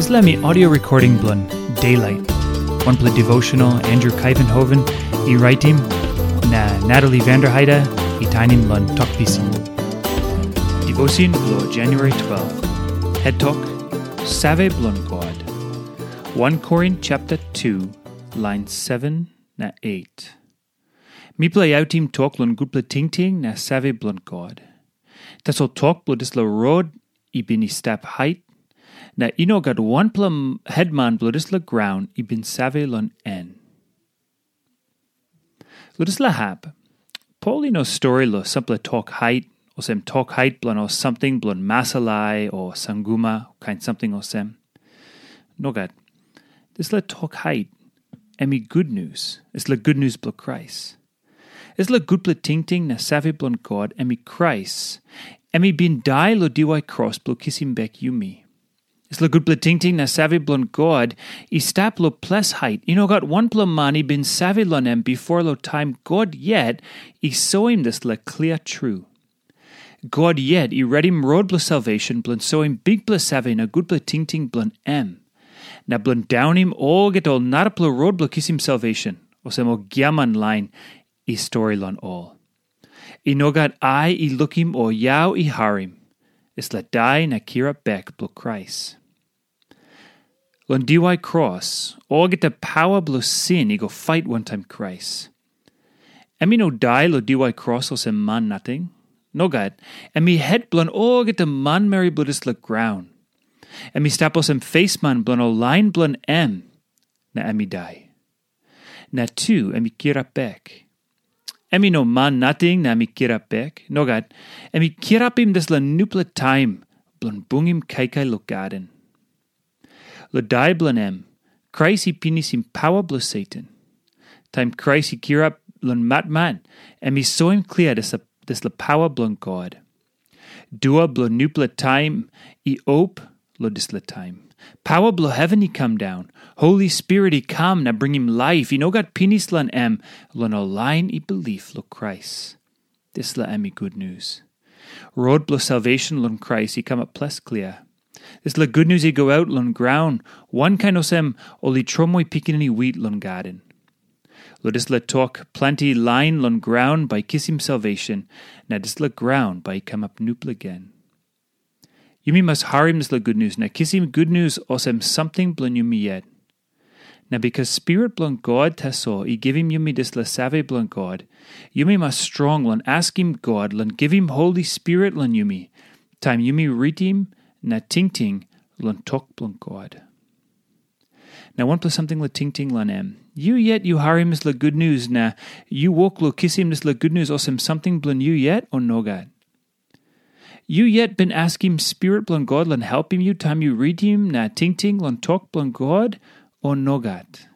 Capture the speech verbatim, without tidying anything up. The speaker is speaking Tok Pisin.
Dispela mi audio recording bilong Daylight, wanpela devotional Andrew Kaivenhoven i raitim, na Natalie Vanderheide i tainim long Tok Pisin. Devotion bilong January twelve. Het tok, Save bilong God. Wan Korin chapter two, line seven na eight. Mipela i autim tok long gutpela tingting na save bilong God. Tasol tok bilong dispela rot i bin i stap hait, na i no gat wanpela m- hetman bilong dispela graun i bin save long en. Long dispela hap, Pol i no stori long sampela tok hait, olsem tok hait bilong ol samting bilong masalai o sanguma, kain samting olsem. Nogat. Dispela tok hait, em i gutnius, dispela gutnius bilong Krais. Dispela gutpela tingting na save bilong God, em i Krais. Em i bin dai long diwai kros bilong kisim bek yumi. Dispela gutpela tingting na save bilong God i stap long ples hait. I no gat wanpela man i bin save long em bipo long taim God yet i soim dispela klia tru. God yet i redim rot bilong salvation bilong soim bikpela save na gutpela tingting bilong em, na bilong daunim olgeta ol narapela rot bilong kisim salvation, olsem ol giaman lain i stori long ol. I no gat ai i lukim o yau i harim, dispela dai na kirap bek bilong Krais. Long diwai kros, olgeta paua bilong sin i go fait wantaim Krais. Em i no dai long diwai kros olsem man nating. Nogat, em i het bilong olgeta manmeri bilong dispela graun. Em i stap olsem fesman bilong ol lain bilong em, na em i dai. Na tu em i kirap bek. Em i no man nating na em i kirap bek. Nogat, em i kirapim dispela nupela taim bilong bungim kaikai long gaden. Long dai bilong em, Krais i pinisim paua bilong Satan. Taim Krais i kirap long matmat, em i soim klia dispela paua bilong God. Dua bilong nupela taim i op long dispela taim. Paua bilong heven i kam daun. Holi Spirit i kam na bringim laip i no gat pinis long em, long ol lain i bilip long Krais. Dispela em i gutnius. Rot bilong salvation long Krais i kamap ples klia. Dispela gutnius i go aut long graun, wankain olsem ol i tromoi pikinini wit long gaden. Long dispela tok, planti lain long graun bai kisim salvation, na dispela graun bai i kamap nupela gen. Yumi mas harim dispela gutnius na kisim gutnius olsem samting bilong yumi yet. Na bikas Spirit bilong God tasol i givim yumi dispela save bilong God, yumi mas strong long askim God long givim Holi Spirit long yumi, taim yumi ritim na tingting long tok bilong God. Na wanpela samting long tingting long em. Yu yet yu harim dispela gutnius na yu wok long kisim dispela gutnius olsem samting bilong yu yet, o nogat? Yu yet bin askim Spirit bilong God long helpim yu taim yu ritim na tingting long tok bilong God, o nogat?